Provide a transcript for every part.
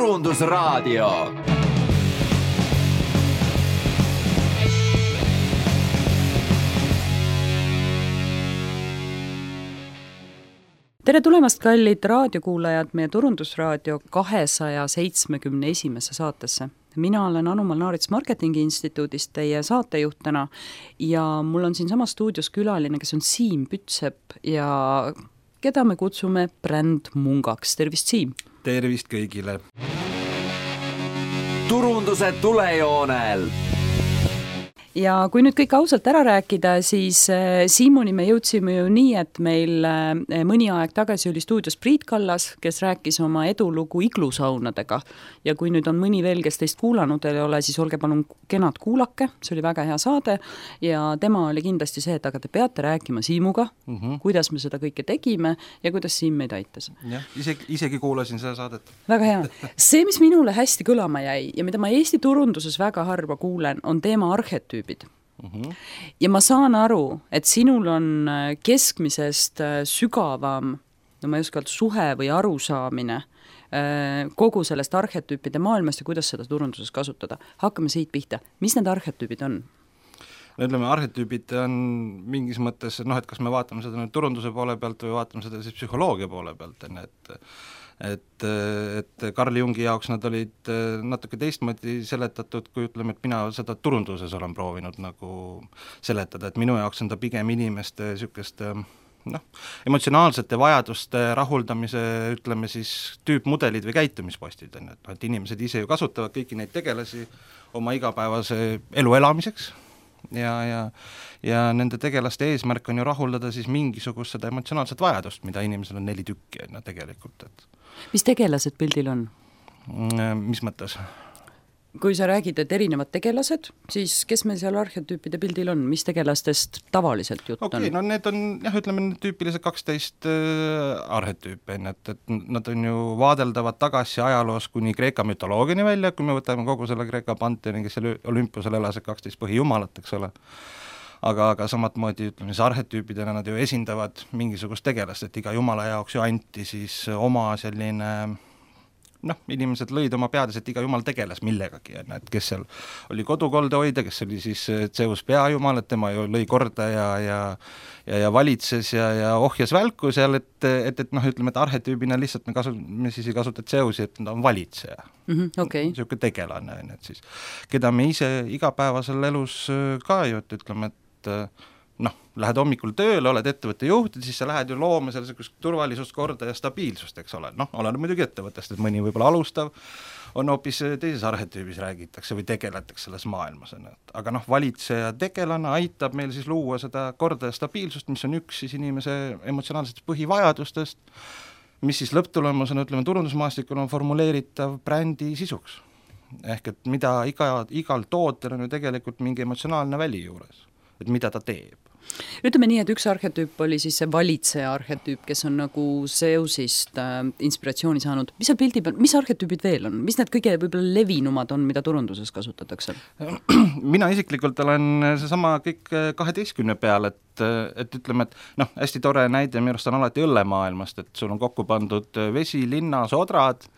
Turundusraadio. Tere tulemast, kallid raadiokuulajad, meie Turundusraadio 271. saatesse. Mina olen Anu Malnaarits Marketingi Instituudist teie saatejuhtena ja mul on siin sama stuudios külaline, kes on Siim Pütsepp ja keda me kutsume Bränd Mungaks. Tervist, Siim! Tervist kõigile! Turunduse tulejoonel! Ja kui nüüd kõik ausalt ära rääkida, siis Siimuni me jõudsime ju nii, et meil mõni aeg tagasi oli stuudios Priit Kallas, kes rääkis oma edulugu iglusaunadega. Ja kui nüüd on mõni veel, kes teist kuulanud ei ole, siis olge palun kenad kuulake, see oli väga hea saade ja tema oli kindlasti see, et aga te peate rääkima Siimuga, kuidas me seda kõike tegime ja kuidas Siim meid aitas. Jah, isegi kuulasin seda saadet. Väga hea. See, mis minule hästi kõlama jäi ja mida ma Eesti turunduses väga harva kuulen, on teema arhetüüp. Ja ma saan aru, et sinul on keskmisest sügavam, no ma ei oska öelda, suhe või arusaamine kogu sellest arhetüüpide maailmast ja kuidas seda turunduses kasutada. Hakkame siit pihta. Mis need arhetüübid on? No ütleme, arhetüübid on mingis mõttes, et kas me vaatame seda nüüd turunduse poole pealt või vaatame seda siis psühholoogia poole pealt, et Carl Jungi jaoks nad olid natuke teistmoodi seletatud, kui ütleme, et mina seda turunduses olen proovinud nagu seletada, et minu jaoks on ta pigem inimeste sükest emotsionaalsete vajaduste rahuldamise, ütleme siis tüüpmudelid või käitumispostid, et inimesed ise ju kasutavad kõiki neid tegelasi oma igapäevase elu elamiseks ja nende tegelaste eesmärk on ju rahuldada siis mingisugust seda emotsionaalset vajadust, mida inimesel on 4 tükki tegelikult. Mis tegelased pildil on? Mis mõttes? Kui sa räägid, et erinevad tegelased, siis kes meil seal arhetüüpide pildil on? Mis tegelastest tavaliselt jutt on? No need on, ütleme, tüüpilised 12 arhetüüpe, et nad on ju vaadeldavad tagasi ajaloos kuni Kreeka mütoloogiani välja, kui me võtame kogu selle Kreeka panteoni, kes seal Olümpusel elas 12 põhijumalat, eks ole. Aga samatmoodi, ütleme, siis arhetüüpidena nad ju esindavad mingisugust tegelast, et iga jumala jaoks ju anti siis oma selline inimesed lõid oma peades, et iga jumal tegeles millegagi, et kes seal oli kodukolde hoida, kes oli siis Zeus peajumal, et tema ju lõi korda ja valitses ja ohjas välku seal, et ütleme, et arhetüübina lihtsalt me siis ei kasuta Zeusi, et ta on valitseja. Okay. Siuke tegelane, et siis, keda me ise igapäevasel elus ka ju, et ütleme, et lähed hommikul tööle, oled ettevõtte juht, siis sa lähed ju looma sellisest turvalisust, korda ja stabiilsust, eks ole. Oleneb muidugi ettevõttest, et mõni võib-olla alustav on hoopis teises arhetüübis räägitakse või tegeletakse selles maailmas. Aga valitseja tegelane aitab meil siis luua seda korda ja stabiilsust, mis on üks siis inimese emotsionaalsetest põhivajadustest, mis siis lõpptulemusena, ütleme, turundusmaastikul on formuleeritav brändi sisuks. Ehk et mida igal tootel on ju tegelikult mingi emotsionaalne väli juures, et mida ta teeb. Ütleme nii, et üks arhetüüp oli siis see valitseja arhetüüp, kes on nagu Zeusist inspiratsiooni saanud. Mis seal pildi peal, mis arhetüübid veel on? Mis need kõige võib-olla levinumad on, mida turunduses kasutatakse? Mina isiklikult olen seesama kõik 12 peal, et ütleme, et hästi tore näide minu arust on alati õllemaailmast, et sul on kokku pandud vesi, linna, sodrad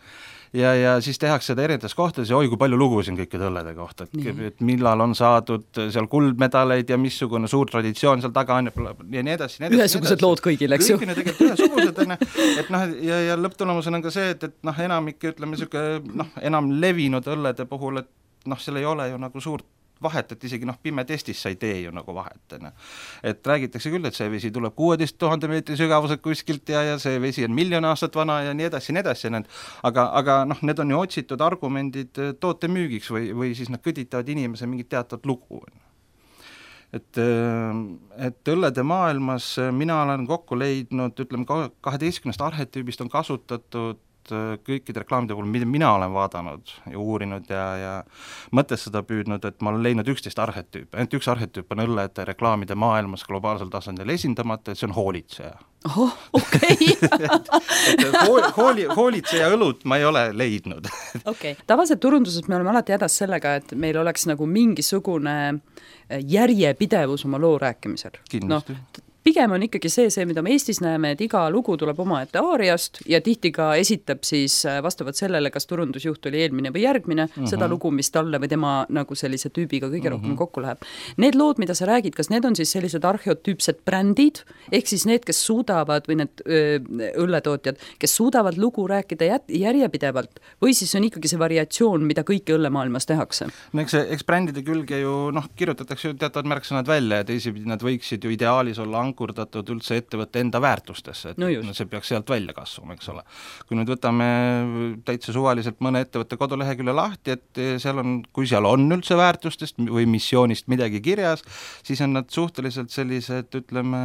ja siis tehakse seda erinevates kohtades ja kui palju lugusid kõikide õllede kohta, et millal on saadud seal kuldmedaleid ja missugune suur traditsioon seal taga on ja nii edasi. Ühesugused lood kõigil, eks ju? Kõigil tegelikult ühesugused, ja lõpptulemusena on ka see, et enamik, ütleme, enam levinud õllede puhul, et seal ei ole ju nagu suurt vahet, et isegi pime testis sa ei tee ju nagu vahet. Et räägitakse küll, et see vesi tuleb 16 000 meetri sügavuselt kuskilt ja see vesi on 1 000 000 aastat vana ja nii edasi. Aga need on ju otsitud argumendid toote müügiks või siis nad kõditavad inimese mingit teatavat lugu. Et õllede maailmas mina olen kokku leidnud, ütleme, 12 arhetüübist on kasutatud kõikide reklaamide puhul, mida mina olen vaadanud ja uurinud ja mõtestada püüdnud, et ma olen leidnud 11 arhetüüpe. Ainult üks arhetüüp on õllede reklaamide maailmas globaalsel tasandil esindamata, et see on hoolitseja. Okei. Hoolitseja õlut ma ei ole leidnud. Okay. Tavaliselt turunduses me oleme alati hädas sellega, et meil oleks nagu mingisugune järjepidevus oma loo rääkimisel. Kindlasti. pigem on ikkagi see, mida me Eestis näeme, et iga lugu tuleb omaette aariast ja tihti ka esitab siis vastavalt sellele, kas turundusjuht oli eelmine või järgmine, seda lugu, mis talle või tema nagu sellise tüübiga kõige rohkem kokku läheb. Need lood, mida sa räägid, kas need on siis sellised arheotüüpsed brändid, ehk siis need, kes suudavad või need õlletootjad, kes suudavad lugu rääkida järjepidevalt või siis on ikkagi see variatsioon, mida kõike õllemaailmas tehakse? No eks brändide külge ju kirjutatakse ju teatavad märksõnad välja ja teisipidi nad võiksid ju ideaalis olla ankurdatud üldse ettevõtte enda väärtustesse, et see peaks sealt välja kasvama, eks ole. Kui nüüd võtame täitsa suvaliselt mõne ettevõtte kodulehekülje lahti, et kui seal on üldse väärtustest või missioonist midagi kirjas, siis on nad suhteliselt sellised, ütleme,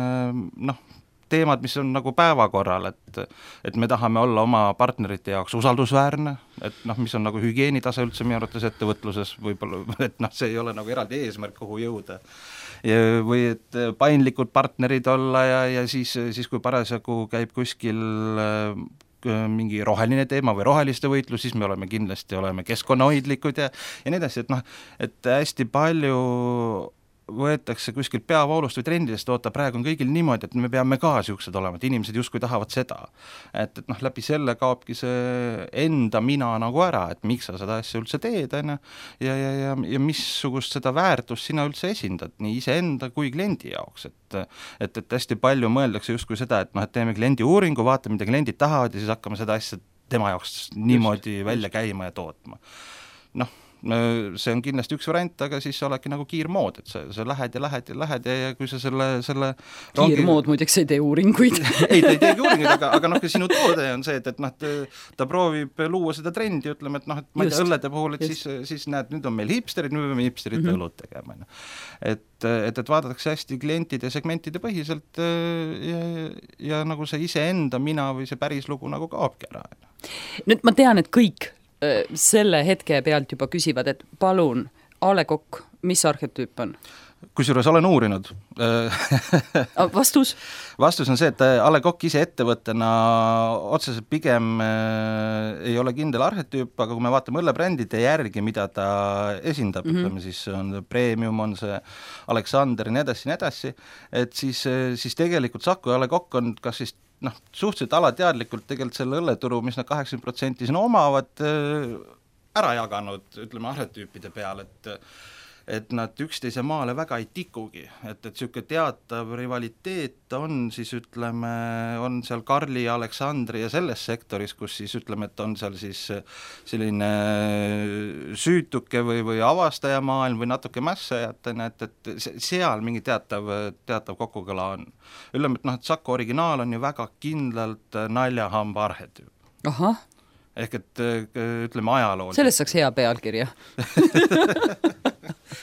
teemad, mis on nagu päevakorral, et me tahame olla oma partnerite jaoks usaldusväärne, et mis on nagu hügieenitase üldse minu arvates ettevõtluses võib-olla, et see ei ole nagu eraldi eesmärk, kuhu jõuda. Või et paindlikud partnerid olla ja siis kui parasjagu käib kuskil mingi roheline teema või roheliste võitlus, siis me kindlasti oleme keskkonnahoidlikud ja nii edasi, et hästi palju võetakse kuskilt peavoolust või trendidest, praegu on kõigil niimoodi, et me peame ka siuksed olema, et inimesed justkui tahavad seda. Et läbi selle kaobki see enda mina nagu ära, et miks sa seda asja üldse teed, ja missugust seda väärtust sina üldse esindad, nii iseenda kui kliendi jaoks, et hästi palju mõeldakse justkui seda, et teeme kliendi uuringu, vaatame, mida kliendid tahavad ja siis hakkame seda asja tema jaoks niimoodi välja käima ja tootma. See on kindlasti üks variant, aga siis olegi nagu kiirmood, et sa lähed ja kui sa selle kiirmood muideks ei tee uuringuid. Ei, ta ei teegi uuringuid, aga sinu toode on see, et ta proovib luua seda trendi, ütleme, et ma ei tea, õllede puhul, et siis näed, nüüd on meil hipsterid, nüüd peame hipsterite õlut tegema. Et vaadatakse hästi klientide ja segmentide põhiselt ja nagu see iseenda mina või see päris lugu nagu kaobki ära. Nüüd ma tean, et kõik selle hetke pealt juba küsivad, et palun, A. Le Coq, mis arhetüüp on? Kusjuures olen uurinud. Vastus? Vastus on see, et A. Le Coq ise ettevõttena otseselt pigem ei ole kindel arhetüüp, aga kui me vaatame õllebrändide järgi, mida ta esindab, ütleme siis on Premium, on see Alexander ja nii edasi, et siis tegelikult Saku ja A. Le Coq on kas siis suhteliselt alateadlikult tegelikult selle õlleturu, mis nad 80% siin omavad, ära jaganud, ütleme, arhetüüpide peal, et nad üksteise maale väga ei tikugi, et siuke teatav rivaliteet on siis, ütleme, on seal Karli ja Aleksandri ja selles sektoris, kus siis ütleme, et on seal siis selline süütuke või avastajamaailm või natuke mässajatena, et seal mingi teatav kokkukõla on. Ütleme, et Saku originaal on ju väga kindlalt naljahamba arhetüüp. Ahah. Ehk et ütleme ajalool. Sellest saaks hea pealkirja.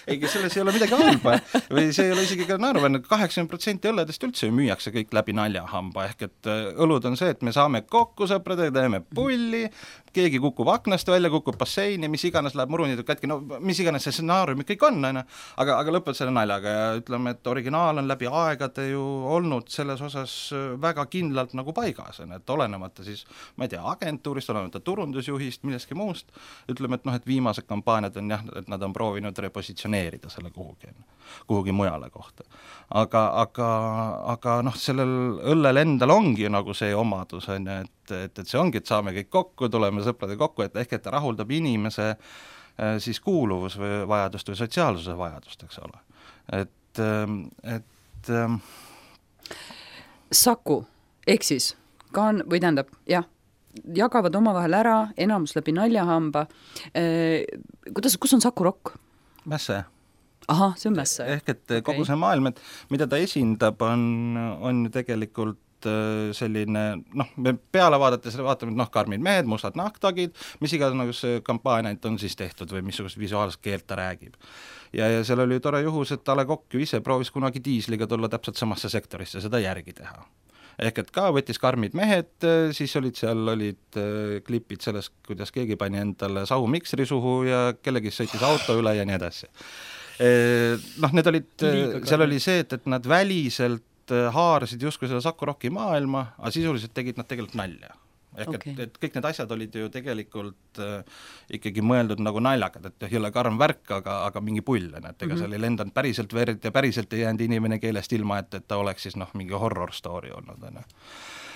Ei, selles ei ole midagi halba või see ei ole isegi ka naeruväärne, 80% õlledest üldse müüakse kõik läbi naljahamba, ehk et õlud on see, et me saame kokku sõpradega, teeme pulli, keegi kukub aknast välja, kukub basseini, mis iganes läheb murunitud kätki, mis iganes see stsenaarium kõik on, aga lõpeb selle naljaga ja ütleme, et originaal on läbi aegade ju olnud selles osas väga kindlalt nagu paigas, et olenemata siis, ma ei tea, agentuurist, olenemata turundusjuhist, millestki muust, ütleme, et viimased kampaaniad on jah, et nad on proovinud repositsioneerida selle kuhugi mujale kohta. Aga sellel õllel endal ongi nagu see omadus, et see ongi, et saame kõik kokku, tuleme sõprade kokku, et ehk et ta rahuldab inimese siis kuuluvus või vajadust või sotsiaalsuse vajadust, eks ole. Et Saku, ehk siis või tähendab, jah, jagavad omavahel ära, enamus läbi naljahamba. Kus on Saku Rock? Mässe. Ahah, see on Mässe. Ehk et kogu see maailm, et mida ta esindab, on ju tegelikult selline, me peale vaadates vaatame, karmid mehed, mustad nahktagid, mis iganes kampaaniaid on siis tehtud või missugust visuaalset keelt ta räägib. Ja seal oli tore juhus, et A. Le Coq ju ise proovis kunagi diisliga tulla täpselt samasse sektorisse, seda järgi teha. Ehk et ka võttis karmid mehed, siis olid klipid sellest, kuidas keegi pani endale sahumiksri suhu ja kellegi sõitis auto üle ja nii edasi. Need olid, seal oli see, et nad väliselt haarasid justkui selle Saku Rocki maailma, aga sisuliselt tegid nad tegelikult nalja. ehk et kõik need asjad olid ju tegelikult ikkagi mõeldud nagu naljakad, et ei ole karm värk, aga mingi pull, et ega seal ei lendanud päriselt verd ja päriselt ei jäänud inimene keelest ilma, et ta oleks siis mingi horror story olnud,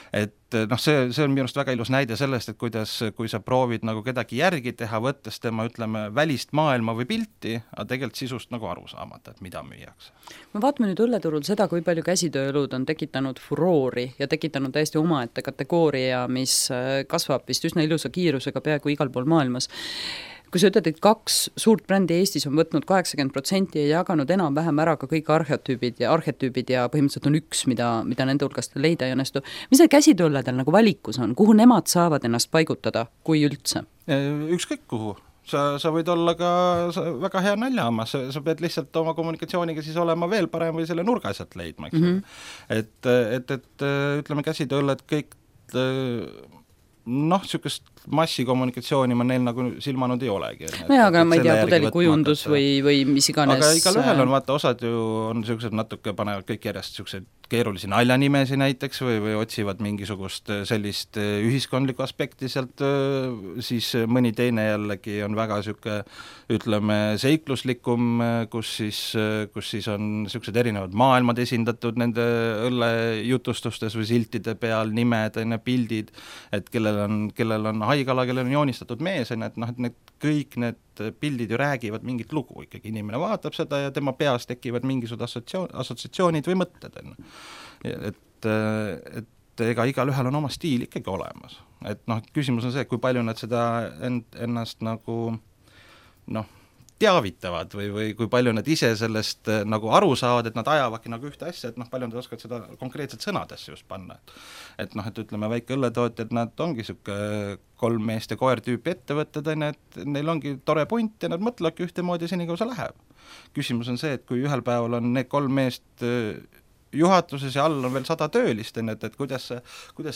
et see on minu arust väga ilus näide sellest, et kuidas, kui sa proovid nagu kedagi järgi teha, võttes tema, ütleme, välist maailma või pilti, aga tegelikult sisust nagu aru saamata, et mida müüakse. Me vaatame nüüd õlleturul seda, kui palju käsitööelud on tekitanud furoori ja tekitanud täiesti omaette kategooria, mis kasvab vist üsna ilusa kiirusega peaaegu igal pool maailmas. Kui sa ütled, et 2 suurt brändi Eestis on võtnud 80% ja jaganud enam-vähem ära ka kõik arhetüübid ja põhimõtteliselt on üks, mida nende hulgast leida ei õnnestu. Mis need käsitööledel nagu valikus on? Kuhu nemad saavad ennast paigutada, kui üldse? Ükskõik kuhu. Sa võid olla ka väga hea naljahammas, sa pead lihtsalt oma kommunikatsiooniga siis olema veel parem või selle nurga sealt leidma, eks et ütleme käsitööled kõik niisugust massikommunikatsiooni ma neil nagu silmanud ei olegi. Aga ma ei tea, pudelikujundus või mis iganes. Aga igal ühel on, vaata, osad ju on niisugused natuke, panevad kõik järjest niisugused keerulisi naljanimesi näiteks või otsivad mingisugust sellist ühiskondlikku aspekti sealt, siis mõni teine jällegi on väga niisugune, ütleme, seikluslikum, kus siis on niisugused erinevad maailmad esindatud nende õllejutustustes või siltide peal, nimed, pildid, et kellel on haigala, kellel on joonistatud mees, et need kõik need pildid ju räägivad mingit lugu ikkagi, inimene vaatab seda ja tema peas tekivad mingisugused assotsiatsioonid või mõtted. Et ega igal ühel on oma stiil ikkagi olemas. Et küsimus on see, kui palju nad seda ennast nagu teavitavad või kui palju nad ise sellest nagu aru saavad, et nad ajavadki nagu ühte asja, et palju nad oskavad seda konkreetselt sõnadesse just panna. Et ütleme, väike õlletootjad, nad ongi siuke 3 meest ja koer tüüpi ettevõtted, et neil ongi tore punt ja nad mõtlevadki ühtemoodi senikaua see läheb. Küsimus on see, et kui ühel päeval on need 3 meest juhatuses ja all on veel 100 töölist, et kuidas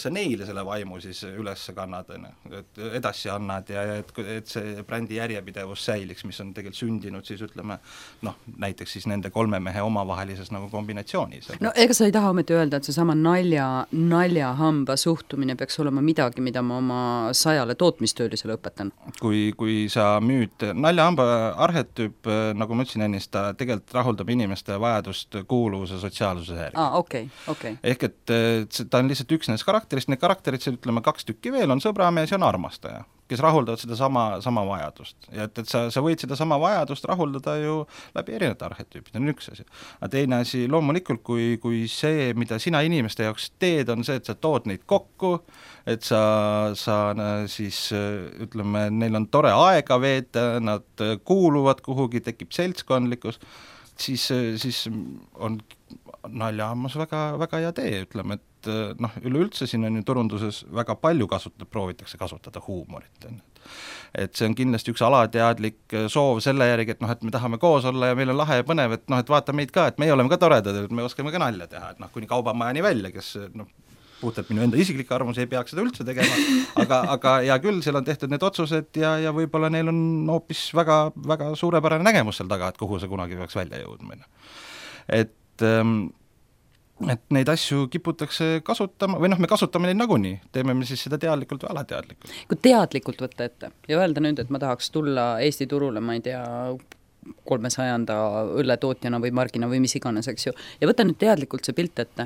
sa neile selle vaimu siis üles kannad, et edasi annad ja et see brändi järjepidevus säiliks, mis on tegelikult sündinud siis ütleme, näiteks siis nende 3 mehe omavahelises nagu kombinatsioonis. Ega sa ei taha ometi öelda, et see sama naljahamba suhtumine peaks olema midagi, mida ma oma 100 tootmistöölisele õpetan? Kui sa müüd naljahamba arhetüüp, nagu ma ütlesin ennist, ta tegelikult rahuldab inimeste vajadust kuuluvuse sotsiaalsuse Okay. Ehk et ta on lihtsalt üks nendest karakterist, need karakterid, ütleme 2 tükki veel, on sõbramees ja on armastaja, kes rahuldavad seda sama vajadust. Ja et sa võid seda sama vajadust rahuldada ju läbi erinevate arhetüüpid, on üks asi. Aga teine asi, loomulikult, kui see, mida sina inimeste jaoks teed, on see, et sa tood neid kokku, et sa siis ütleme, neil on tore aega veeta, nad kuuluvad kuhugi, tekib seltskondlikkus, siis on naljahammas väga hea tee, ütleme, et üleüldse siin on ju turunduses väga palju proovitakse kasutada huumorit. Et see on kindlasti üks alateadlik soov selle järgi, et me tahame koos olla ja meil on lahe ja põnev, et vaata meid ka, et meie oleme ka toredad, et me oskame ka nalja teha, et kuni kaubamajani välja, kes puhtalt minu enda isiklik arvamus ei peaks seda üldse tegema, aga hea küll, seal on tehtud need otsused ja võib-olla neil on hoopis väga, väga suurepärane nägemus seal taga, et kuhu see kunagi peaks välja jõudma. Et neid asju kiputakse kasutama, või me kasutame neid nagunii, teeme me siis seda teadlikult või alateadlikult. Kui teadlikult võtta ette ja öelda nüüd, et ma tahaks tulla Eesti turule, ma ei tea, 300 õlletootjana või margina või mis iganes, eks ju, ja võta nüüd teadlikult see pilt ette.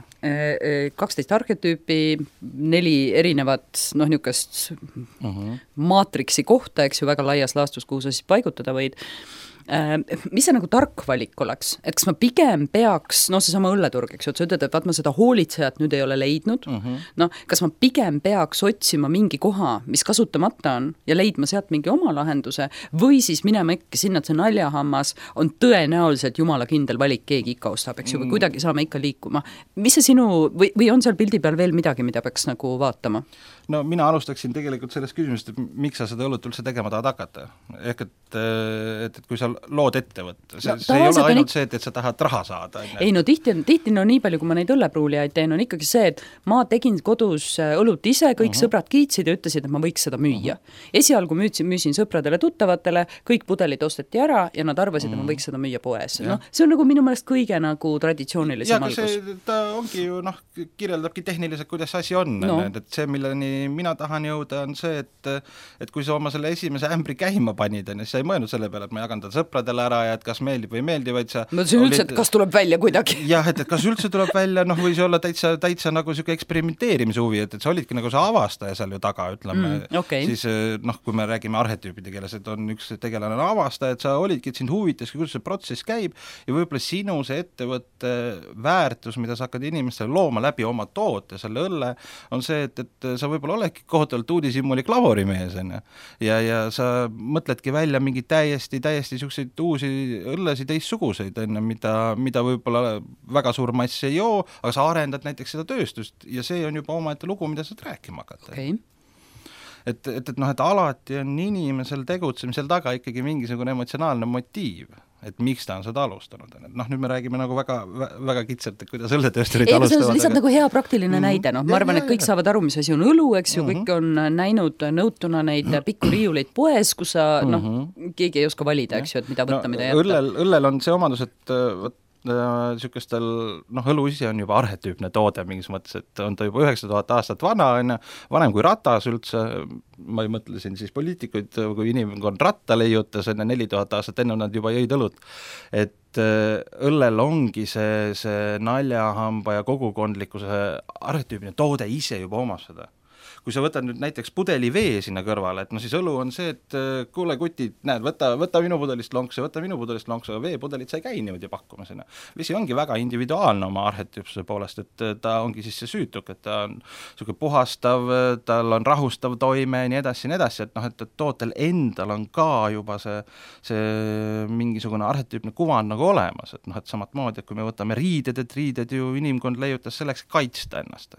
12 arhetüüpi, 4 erinevat niisugust maatriksi kohta, eks ju, väga laias laastus, kuhu sa siis paigutada võid. Mis see nagu tark valik oleks? Et kas ma pigem peaks, seesama õlleturg, eks ju, et sa ütled, et vaat ma seda hoolitsejat nüüd ei ole leidnud, kas ma pigem peaks otsima mingi koha, mis kasutamata on ja leidma sealt mingi oma lahenduse või siis minema ikka sinna, et see naljahammas on tõenäoliselt jumala kindel valik, keegi ikka ostab, eks ju, või kuidagi saame ikka liikuma. Mis see sinu, või on seal pildi peal veel midagi, mida peaks nagu vaatama? Mina alustaksin tegelikult sellest küsimusest, et miks sa seda õlut üldse tegema tahad hakata. Ehk et kui sa lood ettevõtte, see ei ole ainult see, et sa tahad raha saada. Ei tihti nii palju, kui ma neid õllepruulijaid teen, on ikkagi see, et ma tegin kodus õlut ise, kõik sõbrad kiitsid ja ütlesid, et ma võiks seda müüa. Esialgu müüsin sõpradele tuttavatele, kõik pudelid osteti ära ja nad arvasid, et ma võiks seda müüa poes. See on nagu minu meelest kõige nagu traditsioonilisem algus. Ta ongi ju, kirjeldabki tehniliselt, kuidas asi on, et see, milleni mina tahan jõuda, on see, et kui sa oma selle esimese ämbri käima panid, siis sa ei mõelnud selle peale, et ma jagan ta sõpradele ära ja et kas meeldib või ei meeldi, vaid sa mõtlesin üldse, et kas tuleb välja kuidagi. Jah, et kas üldse tuleb välja, või see olla täitsa nagu siuke eksperimenteerimise huvi, et sa olidki nagu see avastaja seal ju taga, ütleme, siis kui me räägime arhetüüpide keeles, et on üks tegelane avastaja, et sa olidki, et sind huvitaski, kuidas see protsess käib ja võib-olla sinu see ettevõtte väärtus, mida sa hakkad inimestele looma läbi oma toote, selle õlle, on see, et sa võib-olla oledki kohutavalt uudishimuli klavorimees, ja sa mõtledki välja mingi täiesti siukseid uusi õllesid teistsuguseid, mida võib-olla väga suur mass ei joo, aga sa arendad näiteks seda tööstust ja see on juba omaette lugu, mida saad rääkima hakata. Okay. Et alati on inimesel tegutsemisel taga ikkagi mingisugune emotsionaalne motiiv, et miks ta on seda alustanud. Nüüd me räägime nagu väga, väga kitsalt, et kuidas õlletöösturid alustavad. See on lihtsalt nagu hea praktiline näide. Ma arvan, et kõik saavad aru, mis asi on õlu, eks ju, kõik on näinud nõutuna neid pikku riiuleid poes, kus sa, keegi ei oska valida, eks ju, et mida võtta, mida jätta. Õllel on see omadus, et sükestel, õlu ise on juba arhetüüpne toode mingis mõttes, et on ta juba 9000 aastat vana, vanem kui ratas üldse, ma ei mõtle siin siis poliitikuid, kui inimkond ratta leiutas, 4000 aastat enne nad juba jõid õlut, et õllel ongi see naljahamba ja kogukondlikkuse arhetüüpne toode ise juba omas seda. Kui sa võtad nüüd näiteks pudeli vee sinna kõrvale, et siis õlu on see, et kuule kutid, näed, võta minu pudelist lonksu, aga veepudelit sa ei käi niimoodi pakkuma sinna. Vesi ongi väga individuaalne oma arhetüüpsuse poolest, et ta ongi siis see süütuk, et ta on selline puhastav, tal on rahustav toime ja nii edasi, et tootel endal on ka juba see mingisugune arhetüüpne kuvand nagu olemas, et samat moodi, et kui me võtame riided, et riided ju inimkond leiutas selleks kaitsta ennast,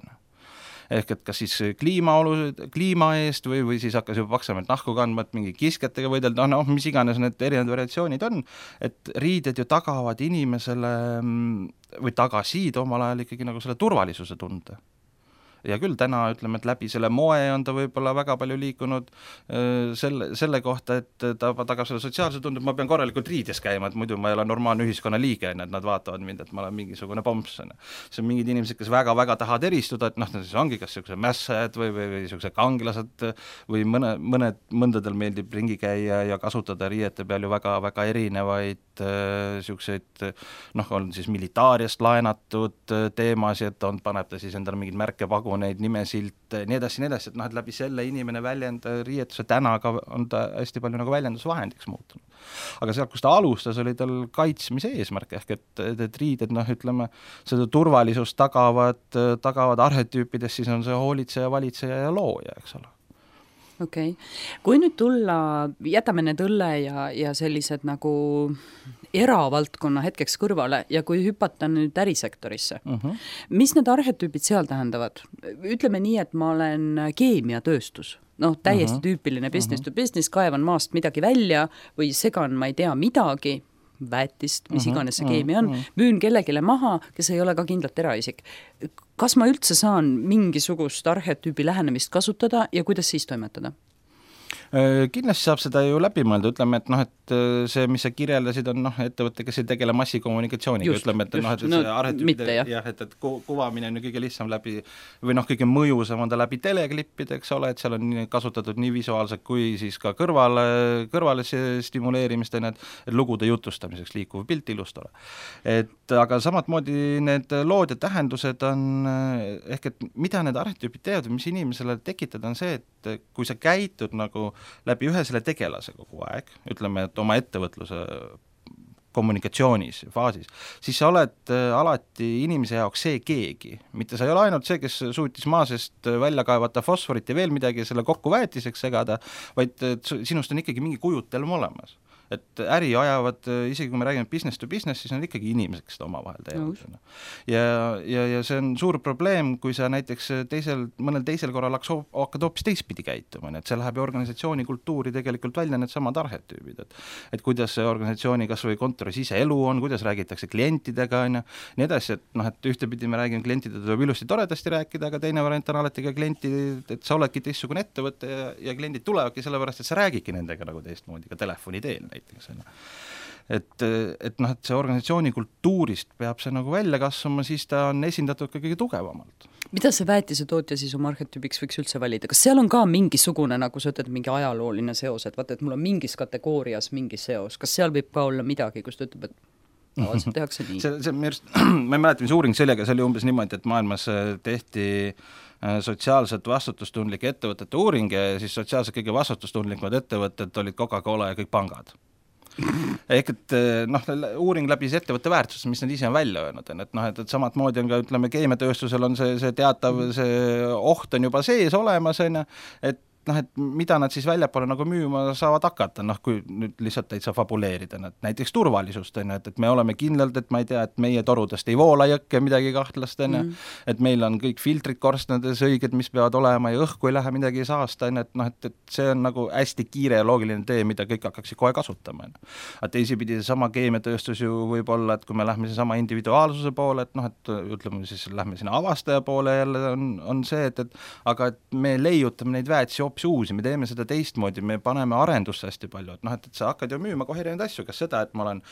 ehk et kas siis kliima eest või siis hakkas juba paksemalt nahku kandma, et mingi kisketega võidelda, mis iganes need erinevad variatsioonid on, et riided ju tagavad inimesele või tagasid omal ajal ikkagi nagu selle turvalisuse tunde. Ja küll täna ütleme, et läbi selle moe on ta võib-olla väga palju liikunud selle kohta, et ta tagab selle sotsiaalse tunde, et ma pean korralikult riides käima, et muidu ma ei ole normaalne ühiskonna liige, et nad vaatavad mind, et ma olen mingisugune pomps. See on mingid inimesed, kes väga tahavad eristuda, et siis ongi kas niisugused mässajad või niisugused kangelased või mõndadel meeldib ringi käia ja kasutada riiete peal ju väga erinevaid niisuguseid, on siis militaariast laenatud teemasid, paneb ta siis endale mingid märkepaguneid, nimesilt, nii edasi, et läbi selle inimene riietuse täna ka on ta hästi palju nagu väljendusvahendiks muutunud. Aga sealt, kus ta alustas, oli tal kaitsmise eesmärk, ehk et riided, ütleme, seda turvalisust tagavad arhetüüpides, siis on see hoolitseja, valitseja ja looja, eks ole. Okei. Kui nüüd tulla, jätame need õlle ja sellised nagu eravaldkonna hetkeks kõrvale ja kui hüpata nüüd ärisektorisse, mis need arhetüübid seal tähendavad? Ütleme nii, et ma olen keemiatööstus, täiesti tüüpiline business to business, kaevan maast midagi välja või segan, ma ei tea, midagi, väetist, mis iganes see keemia on, müün kellegile maha, kes ei ole ka kindlalt eraisik. Kas ma üldse saan mingisugust arhetüübi lähenemist kasutada ja kuidas siis toimetada? Kindlasti saab seda ju läbi mõelda, ütleme, et see, mis sa kirjeldasid, on ettevõte, kes ei tegele massikommunikatsiooniga, ütleme, et see arhetüübide, et kuvamine on ju kõige lihtsam läbi, või kõige mõjusam on ta läbi teleklippide, eks ole, et seal on kasutatud nii visuaalselt kui siis ka kõrvale stimuleerimist, et lugude jutustamiseks liikuv pilt ilustole. Aga samat moodi need lood ja tähendused on, ehk et mida need arhetüübid teevad, mis inimesele tekitada, on see, et kui sa käitud nagu läbi ühe selle tegelase kogu aeg, ütleme, et oma ettevõtluse kommunikatsioonis faasis, siis sa oled alati inimese jaoks see keegi, mitte sa ei ole ainult see, kes suutis maa seest välja kaevata fosforit ja veel midagi selle kokku väetiseks segada, vaid sinust on ikkagi mingi kujutelm olemas. Et äri ajavad, isegi kui me räägime business to business, siis on ikkagi inimesed, kes seda omavahel teevad. Ja see on suur probleem, kui sa näiteks mõnel teisel korral hakkad hoopis teistpidi käituma, et see läheb ju organisatsiooni kultuuri tegelikult välja need samad arhetüübid, et kuidas see organisatsiooni kas või kontoris ise elu on, kuidas räägitakse klientidega, nii edasi, et ühtepidi me räägime klientidega, tuleb ilusti toredasti rääkida, aga teine variant on alati ka klienti, et sa oledki teistsugune ettevõte ja kliendid tulevadki sellepärast, et sa räägidki nendega nagu teistmoodi ka telefoni teel näiteks. Et see organisatsiooni kultuurist peab see nagu välja kasvama, siis ta on esindatud ka kõige tugevamalt. Mida see väetisetootja siis oma arhetüübiks võiks üldse valida? Kas seal on ka mingisugune, nagu sa ütled, mingi ajalooline seos, et vaata, et mul on mingis kategoorias mingi seos, kas seal võib ka olla midagi, kus ta ütleb, et tavaliselt tehakse nii? ma ei mäleta, mis uuring sellega, see oli umbes niimoodi, et maailmas tehti sotsiaalselt vastutustundlike ettevõtete uuring ja siis sotsiaalselt kõige vastutustundlikumad ettevõtted olid Coca-Cola ja kõik pangad. Ehk et uuring läbis ettevõtte väärtust, mis nad ise on välja öelnud, et samad moodi on ka, ütleme, keemiatööstusel on see teatav, see oht on juba sees olemas, et et mida nad siis väljapoole nagu müüma saavad hakata, kui nüüd lihtsalt täitsa fabuleerida, näiteks turvalisust, et me oleme kindlalt, et ma ei tea, et meie torudest ei voola jõkke midagi kahtlast, et meil on kõik filtrid korstnades õiged, mis peavad olema ja õhku ei lähe midagi saasta, et see on nagu hästi kiire ja loogiline tee, mida kõik hakkaksid kohe kasutama. Aga teisipidi sama keemiatööstus ju võib olla, et kui me lähme sama individuaalsuse poole, et ütleme siis lähme sinna avastaja poole jälle on see, aga et me leiutame neid väetisi uusi, me teeme seda teistmoodi, me paneme arendusse hästi palju, et sa hakkad ju müüma kohe erinevaid asju, kas seda, et ma olen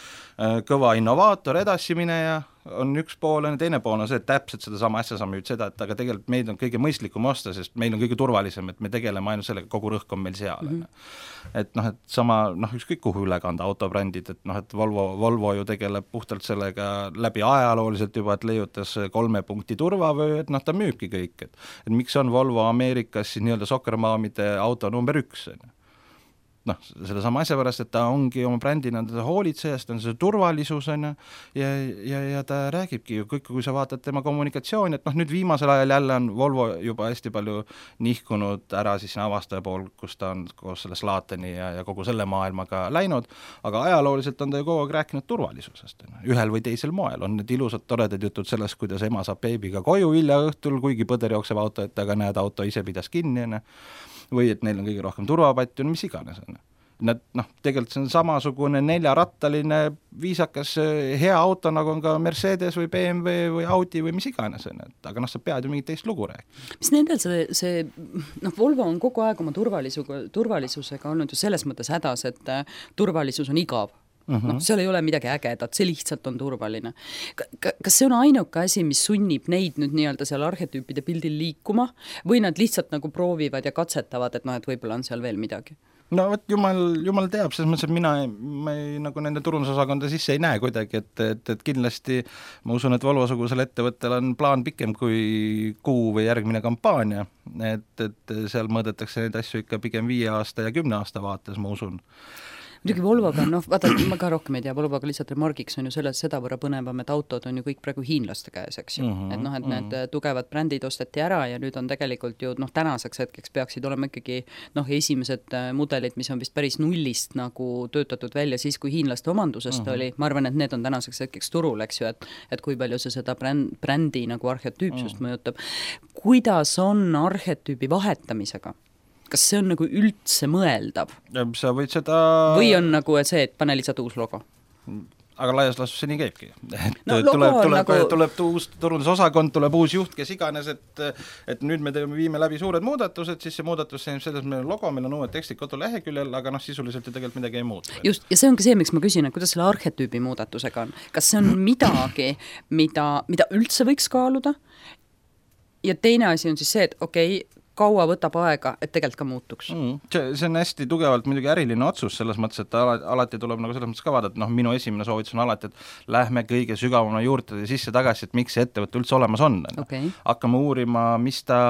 kõva innovaator, edasimineja, on üks pool, teine pool on see, et täpselt sedasama asja sa müüd seda, et aga tegelikult meid on kõige mõistlikum osta, sest meil on kõige turvalisem, et me tegeleme ainult sellega, kogu rõhk on meil seal. Et sama, ükskõik kuhu üle kanda autobrändid, et Volvo ju tegeleb puhtalt sellega läbi ajalooliselt juba, et leiutas 3 punkti turvavöö, et ta müübki kõik, et miks on Volvo Ameerikas siis nii-öelda sokkermaamide auto number 1, selle sama asja pärast, et ta ongi oma brändina hoolitsejast, on see turvalisus ja ta räägibki ju kõik, kui sa vaatad tema kommunikatsiooni, et nüüd viimasel ajal jälle on Volvo juba hästi palju nihkunud ära siis avastaja pool, kus ta on koos selle Slateni ja kogu selle maailmaga läinud, aga ajalooliselt on ta ju kogu aeg rääkinud turvalisusest, ühel või teisel moel, on need ilusad toredad jutud sellest, kuidas ema saab beebiga koju hilja õhtul, kuigi põder jookseb auto, et aga näed, auto ise pidas kinni, või et neil on kõige rohkem turvapatju, mis iganes. Nad, tegelikult see on samasugune 4-rattaline viisakas hea auto, nagu on ka Mercedes või BMW või Audi või mis iganes, aga sa pead ju mingit teist lugu rääkima. Mis nendel see Volvo on kogu aeg oma turvalisusega olnud ju selles mõttes hädas, et turvalisus on igav. Seal ei ole midagi ägedat, see lihtsalt on turvaline. Kas see on ainuke asi, mis sunnib neid nüüd nii-öelda seal arhetüüpide pildil liikuma või nad lihtsalt nagu proovivad ja katsetavad, et et võib-olla on seal veel midagi? No vot, jumal teab, selles mõttes, et ma ei nagu nende turundusosakonda sisse ei näe kuidagi, et kindlasti ma usun, et Volvo-sugusel ettevõttel on plaan pikem kui kuu või järgmine kampaania, et seal mõõdetakse neid asju ikka pigem 5 aasta ja 10 aasta vaates, ma usun. Muidugi Volvoga, vaata, ma ka rohkem ei tea, Volvoga lihtsalt remargiks on ju seda võrra põnevam, et autod on ju kõik praegu hiinlaste käes, eks ju. Et need tugevad brändid osteti ära ja nüüd on tegelikult ju tänaseks hetkeks peaksid olema ikkagi esimesed mudelid, mis on vist päris nullist nagu töötatud välja siis, kui hiinlaste omandusest oli. Ma arvan, et need on tänaseks hetkeks turul, eks ju, et kui palju see seda brändi nagu arhetüüpsust mõjutab. Kuidas on arhetüübi vahetamisega? Kas see on nagu üldse mõeldav? Sa võid seda... Või on nagu see, et pane lihtsalt uus logo? Aga laias laastus see nii käibki. Tuleb uus turundusosakond, tuleb uus juht, kes iganes, et nüüd me viime läbi suured muudatused, siis see muudatus selles meil on logo, meil on uued tekstid koduleheküljel, aga sisuliselt ju tegelikult midagi ei muutu. Just, ja see ongi see, miks ma küsin, et kuidas selle arhetüübi muudatusega on. Kas see on midagi, mida üldse võiks kaaluda? Ja teine asi on siis see, et kaua võtab aega, et tegelikult ka muutuks. See on hästi tugevalt muidugi äriline otsus selles mõttes, et alati tuleb nagu selles mõttes ka vaadata, minu esimene soovitus on alati, et lähme kõige sügavama juurde sisse tagasi, et miks see ettevõte üldse olemas on. Hakkame uurima, mis ta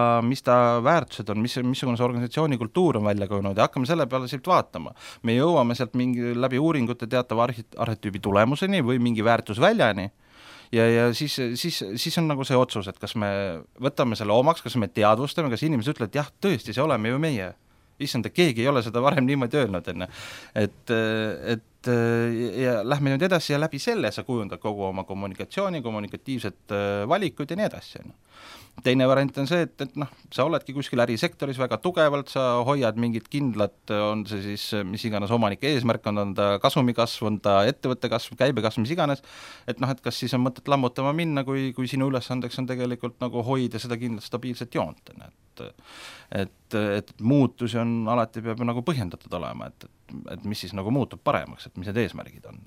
väärtused on, missugune see organisatsiooni kultuur on välja kujunenud ja hakkame selle peale siit vaatama. Me jõuame sealt läbi uuringute teatava arhetüübi tulemuseni või mingi väärtusväljani. Ja siis on nagu see otsus, et kas me võtame selle omaks, kas me teadvustame, kas inimesed ütlevad, et jah, tõesti, see oleme ju meie. Issand, keegi ei ole seda varem niimoodi öelnud. Ja lähme nüüd edasi ja läbi selle sa kujundad kogu oma kommunikatsiooni, kommunikatiivset valikuid ja nii edasi. Teine variant on see, et sa oledki kuskil ärisektoris väga tugevalt, sa hoiad mingit kindlat, on see siis mis iganes omanike eesmärk, on ta kasumikasv, on ta ettevõtte kasv, käibekasv, mis iganes, et kas siis on mõtet lammutama minna, kui sinu ülesandeks on tegelikult nagu hoida seda kindlat stabiilset joont. Et muutusi on alati peab nagu põhjendatud olema, et mis siis nagu muutub paremaks, et mis need eesmärgid on.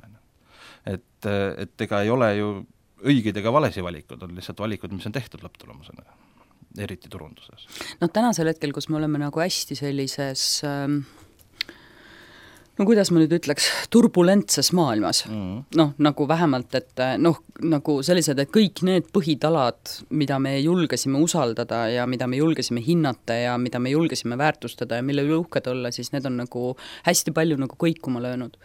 Et ega ei ole ju õigeid ega valesi valikud, on lihtsalt valikud, mis on tehtud lõpptulemusena. eriti turunduses. Tänasel hetkel, kus me oleme nagu hästi sellises kuidas ma nüüd ütleks, turbulentses maailmas. Nagu vähemalt, et nagu sellised, et kõik need põhitalad, mida me julgesime usaldada ja mida me julgesime hinnata ja mida me julgesime väärtustada ja mille üle uhked olla, siis need on nagu hästi palju nagu kõikuma löönud.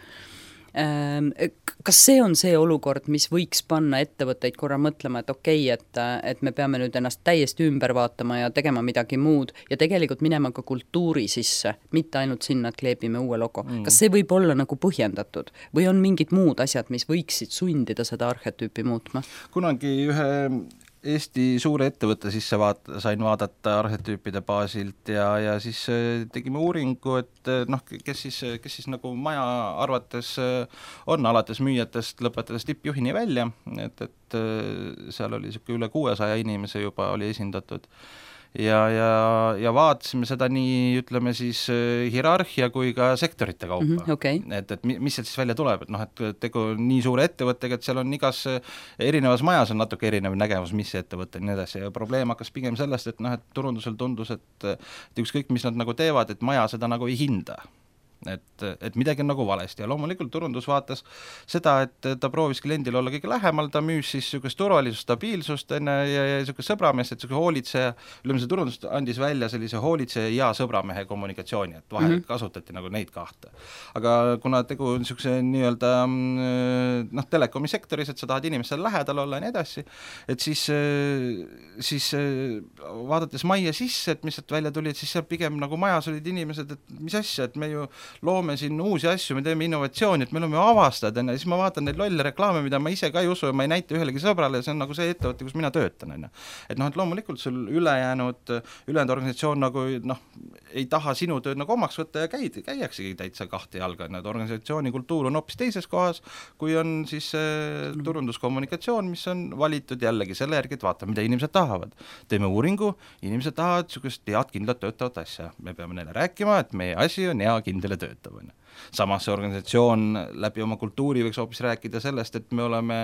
Kas see on see olukord, mis võiks panna ettevõtteid korra mõtlema, et okei, et me peame nüüd ennast täiesti ümber vaatama ja tegema midagi muud ja tegelikult minema ka kultuuri sisse, mitte ainult sinna, et kleebime uue logo. Kas see võib olla nagu põhjendatud või on mingid muud asjad, mis võiksid sundida seda arhetüüpi muutma? Kunagi ühe Eesti suure ettevõtte sisse sain vaadata arhetüüpide baasilt ja siis tegime uuringu, et kes siis nagu maja arvates on alates müüjatest, lõpetades tippjuhini välja, et seal oli üle 600 inimese juba oli esindatud. Ja vaatasime seda nii, ütleme siis hierarhia kui ka sektorite kaupa. Okay. Et mis sealt siis välja tuleb, et tegu nii suure ettevõttega, et seal on igas erinevas majas on natuke erinev nägemus, mis see ettevõte ja nii edasi. Ja probleem hakkas pigem sellest, et turundusel tundus, et ükskõik, mis nad nagu teevad, et maja seda nagu ei hinda. Et midagi on nagu valesti ja loomulikult turundus vaatas seda, et ta proovis kliendil olla kõige lähemal, ta müüs siis niisugust turvalisust, stabiilsust ja niisugust sõbrameest, et niisugune hoolitseja, see turundus andis välja sellise hoolitseja ja sõbramehe kommunikatsiooni, et vahel kasutati nagu neid kahte. Aga kuna tegu on niisuguse nii-öelda telekomi sektoris, et sa tahad inimestel lähedal olla ja nii edasi, et siis vaadates majja sisse, et mis sealt välja tuli, et siis seal pigem nagu majas olid inimesed, et mis asja, et me ju loome siin uusi asju, me teeme innovatsiooni, et meil on ju avastad, ja siis ma vaatan neid lolle reklaame, mida ma ise ka ei usu ja ma ei näita ühelegi sõbrale, see on nagu see ettevõte, kus mina töötan. Et loomulikult sul ülejäänud organisatsioon nagu ei taha sinu tööd nagu omaks võtta ja käiaksegi täitsa kahte jalga, et organisatsiooni kultuur on hoopis teises kohas, kui on siis turunduskommunikatsioon, mis on valitud jällegi selle järgi, et vaata, mida inimesed tahavad. Teeme uuringu, inimesed tahavad niisugust head kindlat töötavat asja. Me peame neile rääkima, et meie asi on hea kindel töötab. Samas see organisatsioon läbi oma kultuuri võiks hoopis rääkida sellest, et me oleme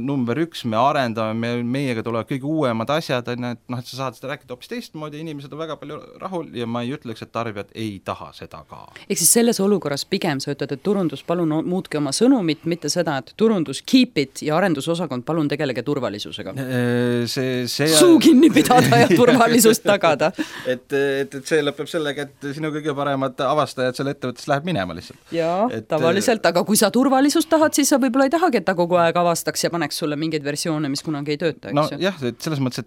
number 1, me arendame, meiega tulevad kõige uuemad asjad, et sa saad seda rääkida hoopis teistmoodi, inimesed on väga palju rahul ja ma ei ütleks, et tarbijad ei taha seda ka. Ehk siis selles olukorras pigem sa ütled, et turundus palun muutke oma sõnumit, mitte seda, et turundus keep it ja arendusosakond palun tegelege turvalisusega. Suu kinni pidada ja turvalisust tagada. Et see lõpeb sellega, et sinu kõige paremad avastajad selle ettevõttes läheb minema lihtsalt. Jaa, tavaliselt, aga kui sa turvalisust tahad, siis sa võib-olla ei tahagi, et ta kogu aeg avastaks ja paneks sulle mingeid versioone, mis kunagi ei tööta, eks ju? Jah, et selles mõttes, et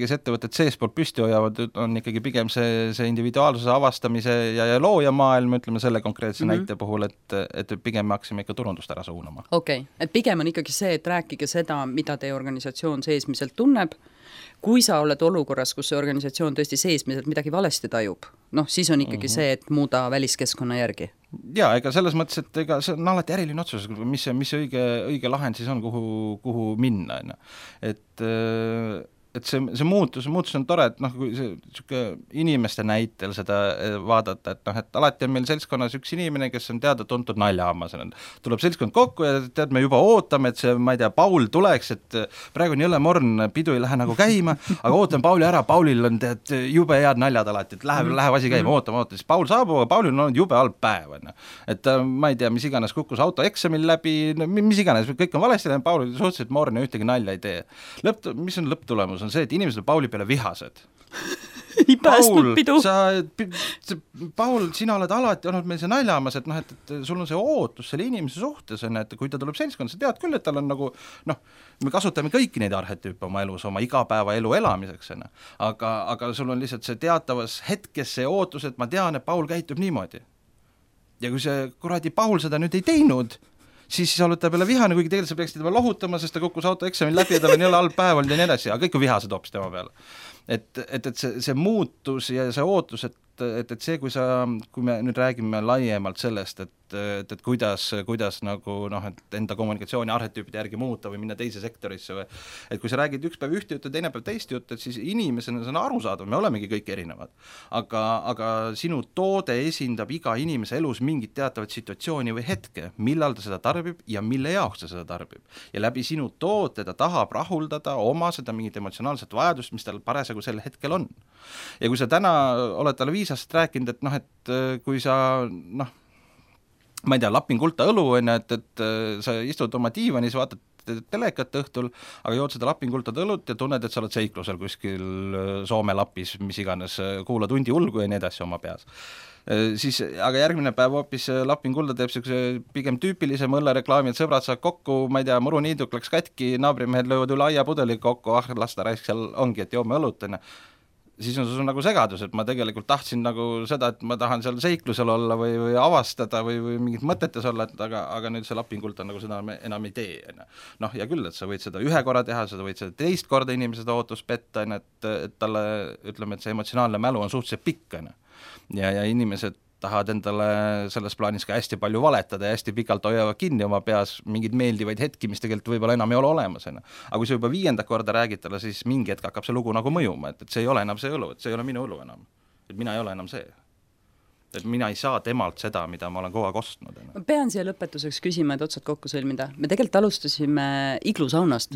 kes ettevõtted seespoolt püsti hoiavad, on ikkagi pigem see individuaalsuse avastamise ja loojamaailm, ütleme selle konkreetse näite puhul, et pigem me haksime ikka turundust ära suunama. Okei, et pigem on ikkagi see, et rääkige seda, mida teie organisatsioon seesmiselt tunneb. Kui sa oled olukorras, kus see organisatsioon tõesti seesmiselt midagi valesti tajub, siis on ikkagi see, et muuda väliskeskkonna järgi. Jaa, ega selles mõttes, et ega see on alati äriline otsus, mis õige lahend siis on, kuhu minna. Et see muutus on tore, et kui see inimeste näitel seda vaadata, et alati on meil seltskonnas üks inimene, kes on teada-tuntud naljahammas. Tuleb seltskond kokku ja tead, me juba ootame, et see, ma ei tea, Paul tuleks, et praegu on jõle morn, pidu ei lähe nagu käima, aga ootame Pauli ära, Paulil on tead jube head naljad alati, et läheb asi käima, ootame, siis Paul saabub, aga Paulil on olnud jube halb päev. Et ma ei tea, mis iganes kukkus auto eksamil läbi, mis iganes, kõik on valesti, Paul suhteliselt morn ja ühtegi nalja ei tee. Mis on lõpptulemus? On see, et inimesed on Pauli peale vihased. Ei päästnud pidu. Paul, sina oled alati olnud meil see naljamas, et sul on see ootus selle inimese suhtes, et kui ta tuleb seltskond, sa tead küll, et tal on nagu, me kasutame kõiki neid arhetüüpe oma elus, oma igapäeva elu elamiseks, aga sul on lihtsalt see teatavas hetkes see ootus, et ma tean, et Paul käitub niimoodi. Ja kui see kuradi Paul seda nüüd ei teinud, siis sa oled ta peale vihane, kuigi tegelikult sa peaksid tema lohutama, sest ta kukkus auto eksamil läbi ja tal on jälle halb päev olnud ja nii edasi, aga kõik on vihased hoopis tema peale. et see muutus ja see ootus, et see, kui me nüüd räägime laiemalt sellest, et kuidas nagu et enda kommunikatsiooni arhetüüpide järgi muuta või minna teise sektorisse või et kui sa räägid üks päev ühte juttu, teine päev teist juttu, et siis inimesena see on arusaadav, me olemegi kõik erinevad. Aga sinu toode esindab iga inimese elus mingit teatavat situatsiooni või hetke, millal ta seda tarbib ja mille jaoks ta seda tarbib. Ja läbi sinu toote ta tahab rahuldada oma seda mingit emotsionaalset vajadust, mis tal parasjagu sel hetkel on. Ja kui sa täna oled talle 5 aastat rääkinud, et kui sa ma ei tea, lapin kulta õlu, et sa istud oma diivanis, vaatad telekat õhtul, aga jood seda lapinkultad õlut ja tunned, et sa oled seiklusel kuskil Soome lapis, mis iganes, kuulad hundi ulgu ja nii edasi oma peas. Siis, aga järgmine päev hoopis lapinkulda teeb pigem tüüpilise mõllereklaami, et sõbrad saavad kokku, ma ei tea, muruniiduk läks katki, naabrimehed löövad üle aiapudeli kokku, lasta raisk seal ongi, et joome õlut, siis on sul nagu segadus, et ma tegelikult tahtsin nagu seda, et ma tahan seal seiklusel olla või avastada või mingit mõtetes olla, aga nüüd see lapingult on nagu seda enam ei tee. Ja küll, et sa võid seda 1 korra teha, sa võid seda 2 korda inimesed ootus petta, et talle, ütleme, et see emotsionaalne mälu on suhteliselt pikk, ja inimesed tahavad endale selles plaanis ka hästi palju valetada ja hästi pikalt hoiavad kinni oma peas mingeid meeldivaid hetki, mis tegelikult võib-olla enam ei ole olemas. Aga kui sa juba 5. korda räägid talle, siis mingi hetk hakkab see lugu nagu mõjuma, et see ei ole enam see õlu, et see ei ole minu õlu enam. Et mina ei ole enam see. Et mina ei saa temalt seda, mida ma olen kogu aeg ostnud. Ma pean siia lõpetuseks küsima, et otsad kokku sõlmida. Me tegelikult alustasime iglusaunast.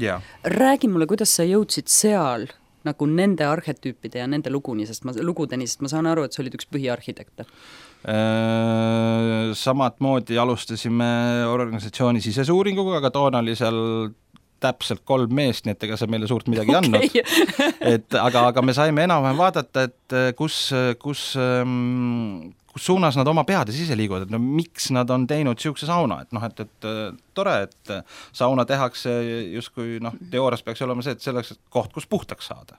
Räägi mulle, kuidas sa jõudsid seal nagu nende arhetüüpide ja nende lugudeni, sest ma saan aru, et sa olid üks põhiarhitekte. Samad moodi alustasime organisatsiooni sisese uuringuga, aga toona oli seal täpselt 3 meest, nii et ega see meile suurt midagi andnud. Aga me saime enam-vähem vaadata, et kus suunas nad oma peades ise liiguvad, et miks nad on teinud siukse sauna, et tore, et sauna tehakse justkui teoorias peaks olema see, et selleks koht, kus puhtaks saada.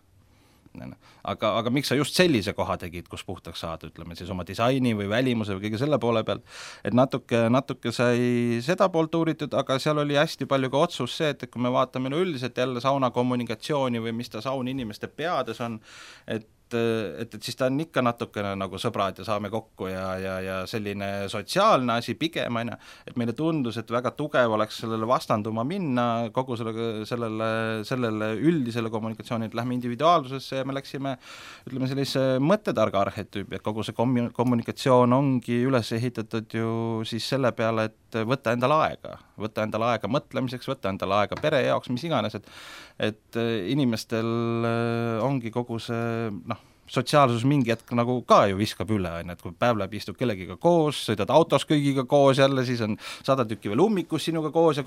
Aga miks sa just sellise koha tegid, kus puhtaks saada, ütleme siis oma disaini või välimuse või kõige selle poole pealt, et natuke sai seda poolt uuritud, aga seal oli hästi palju ka otsus see, et kui me vaatame üldiselt jälle sauna kommunikatsiooni või mis ta saun inimeste peades on, et siis ta on ikka natukene nagu sõbrad ja saame kokku ja selline sotsiaalne asi pigem, et meile tundus, et väga tugev oleks sellele vastanduma minna kogu sellele üldisele kommunikatsiooni, et lähme individuaalsusesse ja me läksime, ütleme sellise mõttetarga arhetüübi, et kogu see kommunikatsioon ongi üles ehitatud ju siis selle peale, et võtta endale aega mõtlemiseks, võtta endale aega pere jaoks, mis iganes, et inimestel ongi kogu see sotsiaalsus mingi hetk nagu ka ju viskab üle, et kui päev läheb, istud kellegiga koos, sõidad autos kõigiga koos jälle, siis on 100 tükki veel ummikus sinuga koos,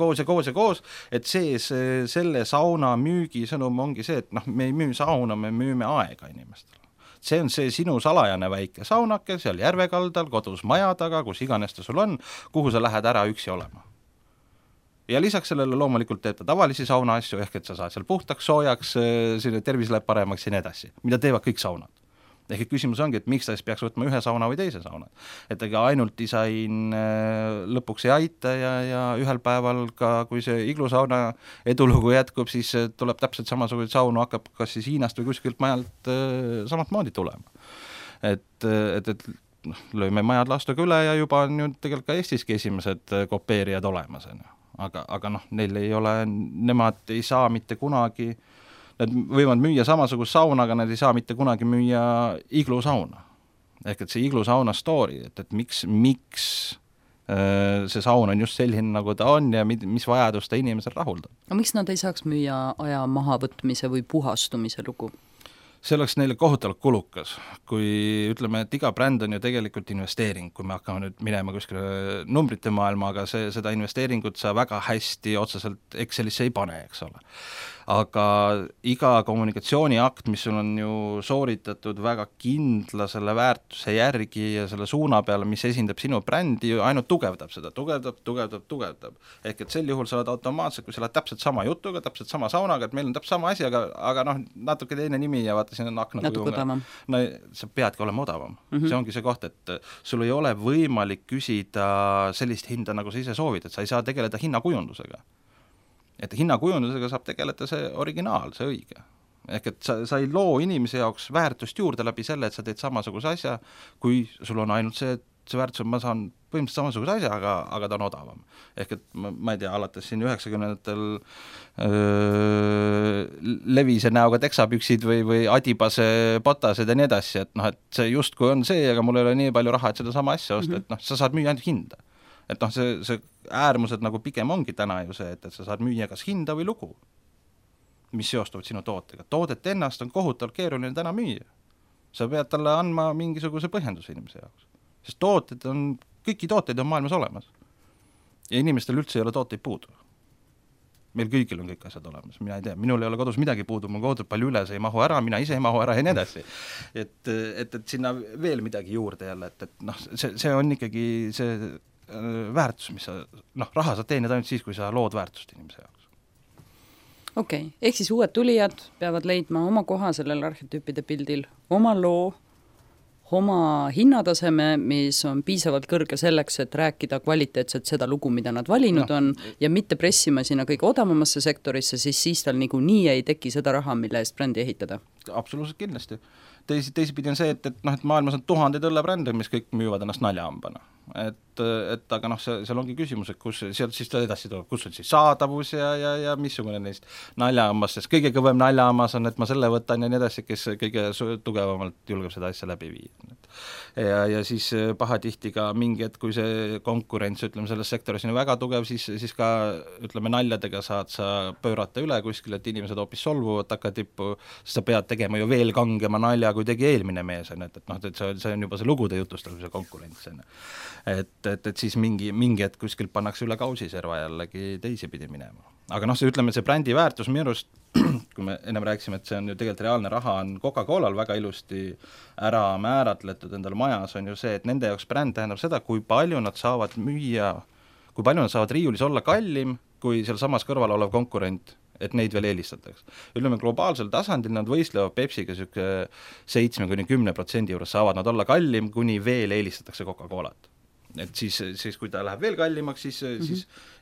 et selle sauna müügisõnum ongi see, et me ei müü sauna, me müüme aega inimestele. See on see sinu salajane väike saunake seal järvekaldal, kodus maja taga, kus iganes ta sul on, kuhu sa lähed ära üksi olema. Ja lisaks sellele loomulikult teeb ta tavalisi sauna asju, ehk et sa saad seal puhtaks, soojaks, sinu tervis läheb paremaks ja nii edasi, mida teevad kõik saunad. Ehk et küsimus ongi, et miks ta siis peaks võtma ühe sauna või teise sauna. Et ega ainult disain lõpuks ei aita ja ühel päeval ka, kui see iglusauna edulugu jätkub, siis tuleb täpselt samasugune saunu, hakkab kas siis Hiinast või kuskilt majalt samat moodi tulema. Et lööme majad lastuga üle ja juba on ju tegelikult ka Eestiski esimesed kopeerijad olemas. Aga neil ei ole, nemad ei saa mitte kunagi, nad võivad müüa samasugust sauna, aga nad ei saa mitte kunagi müüa iglusauna. Ehk et see iglusauna story, et miks see saun on just selline, nagu ta on ja mis vajadus ta inimesel rahuldab. Aga miks nad ei saaks müüa aja mahavõtmise või puhastumise lugu? See oleks neile kohutavalt kulukas, kui ütleme, et iga bränd on ju tegelikult investeering, kui me hakkame nüüd minema kuskile numbrite maailma, aga seda investeeringut sa väga hästi otseselt Excelisse ei pane, eks ole. Aga iga kommunikatsiooniakt, mis sul on ju sooritatud väga kindla selle väärtuse järgi ja selle suuna peale, mis esindab sinu brändi, ainult tugevdab seda, tugevdab. Ehk et sel juhul sa oled automaatselt, kui sa oled täpselt sama jutuga, täpselt sama saunaga, et meil on täpselt sama asi, aga natuke teine nimi ja vaata, siin on akna kujuga. No sa peadki olema odavam. See ongi see koht, et sul ei ole võimalik küsida sellist hinda, nagu sa ise soovid, et sa ei saa tegeleda hinnakujundusega. Et hinnakujundusega saab tegeleda see originaal, see õige. ehk et sa ei loo inimese jaoks väärtust juurde läbi selle, et sa teed samasuguse asja, kui sul on ainult see, et see väärtus on, ma saan põhimõtteliselt samasuguse asja, aga ta on odavam. Ehk et ma ei tea, alates siin 90-ndatel levise näoga teksapüksid või adibase potased ja nii edasi, et noh, et see justkui on see, aga mul ei ole nii palju raha, et seda sama asja osta, et noh, sa saad müüa ainult hinda. Et noh, see äärmused nagu pigem ongi täna ju see, et sa saad müüa kas hinda või lugu, mis seostuvad sinu tootega. Toodet ennast on kohutavalt keeruline täna müüa. Sa pead talle andma mingisuguse põhjenduse inimese jaoks. Sest kõiki tooteid on maailmas olemas. Ja inimestel üldse ei ole tooteid puudu. Meil kõigil on kõik asjad olemas. Mina ei tea, minul ei ole kodus midagi puudu, mul kodus palju üle, see ei mahu ära, mina ise ei mahu ära ja nii edasi. Et sinna veel midagi juurde jälle, et noh, see on ikkagi see väärtus, mis sa, noh, raha sa teenid ainult siis, kui sa lood väärtust inimese jaoks. Okei, ehk siis uued tulijad peavad leidma oma koha sellel arhetüüpide pildil, oma loo, oma hinnataseme, mis on piisavalt kõrge selleks, et rääkida kvaliteetselt seda lugu, mida nad valinud on, ja mitte pressima sinna kõige odavamasse sektorisse, siis tal nii ei teki seda raha, mille eest brändi ehitada. Absoluutselt kindlasti. Teisipidi on see, et maailmas on tuhandeid õllebrände, mis kõik müüvad ennast naljahambana. Et aga noh, seal ongi küsimus, et kus sealt siis edasi tuleb, kus on siis saadavus ja missugune neist naljahambast, sest kõige kõvem naljahammas on, et ma selle võtan ja nii edasi, kes kõige tugevamalt julgeb seda asja läbi viia. Ja siis pahatihti ka mingi, et kui see konkurents, ütleme, selles sektoris on väga tugev, siis ka, ütleme, naljadega saad sa pöörata üle kuskil, et inimesed hoopis solvuvad takatippu, sest sa pead tegema ju veel kangema nalja, kui tegi eelmine mees, et noh, et see on juba see lugude jutustamise konkurents. Et siis mingi hetk kuskilt pannakse üle kausiserva jällegi teisipidi minema. Aga noh, ütleme, see brändi väärtus minu arust, kui me ennem rääkisime, et see on ju tegelikult reaalne raha, on Coca-Colal väga ilusti ära määratletud endal majas, on ju see, et nende jaoks bränd tähendab seda, kui palju nad saavad müüa, kui palju nad saavad riiulis olla kallim, kui seal samas kõrval olev konkurent, et neid veel eelistatakse. Ütleme, globaalsel tasandil nad võistlevad Pepsiga 7-10% juures saavad nad olla kallim, kuni veel eelistatakse Coca-Colat. Et siis kui ta läheb veel kallimaks, siis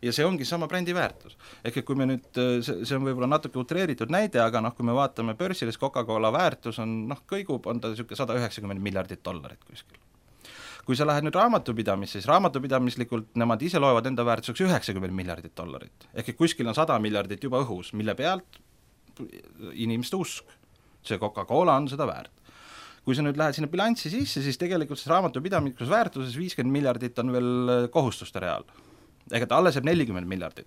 ja see ongi sama brändi väärtus. Ehk kui me nüüd, see on võib-olla natuke utreeritud näide, aga noh, kui me vaatame börsilis Coca-Cola väärtus on, noh, kõigub, on ta $190 miljardit kuskil. Kui sa lähed nüüd raamatupidamisse, siis raamatupidamislikult nemad ise loevad enda väärtuseks $90 miljardit. Ehk kuskil on 100 miljardit juba õhus, mille pealt inimeste usk. See Coca-Cola on seda väärt. Kui sa nüüd lähed sinna bilanssi sisse, siis tegelikult raamatupidamikus väärtuses 50 miljardit on veel kohustuste real. Ehk et alles jääb 40 miljardit.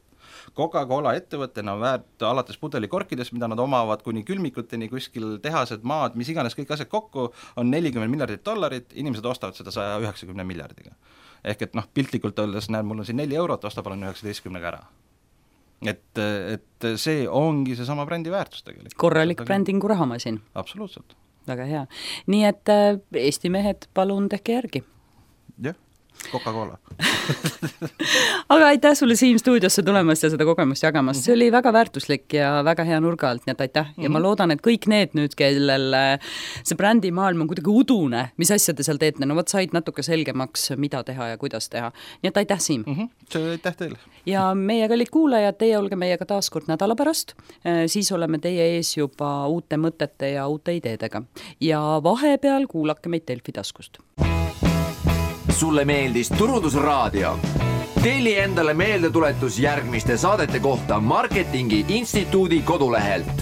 Coca-Cola ettevõttena on väärt alates pudelikorkidest, mida nad omavad kuni külmikuteni, kuskil tehased, maad, mis iganes kõik asjad kokku, on $40 miljardit, inimesed ostavad seda 190 miljardiga. Ehk et noh, piltlikult öeldes, näed, mul on siin 4 eurot, osta palun 19 ära. Et see ongi see sama brändi väärtus tegelikult. Korralik brändingu rahamasin. Absoluutselt. Väga hea. Nii et Eesti mehed, palun tehke järgi. Jah, Coca-Cola. Aga aitäh sulle Siim stuudiosse tulemast ja seda kogemust jagamast. See oli väga väärtuslik ja väga hea nurga alt, nii et aitäh. Ja ma loodan, et kõik need nüüd, kellel see brändi maailm on kuidagi udune, mis asja te seal teete, no võt said natuke selgemaks, mida teha ja kuidas teha. Nii et aitäh, Siim. See aitäh teile. Ja meie kallid kuulajad, teie olge meiega taaskord nädala pärast, siis oleme teie ees juba uute mõtete ja uute ideedega. Ja vahepeal kuulake meid Delfi taskust. Sulle meeldis Turundusraadio? Telli endale meeldetuletus järgmiste saadete kohta Marketingi Instituudi kodulehelt.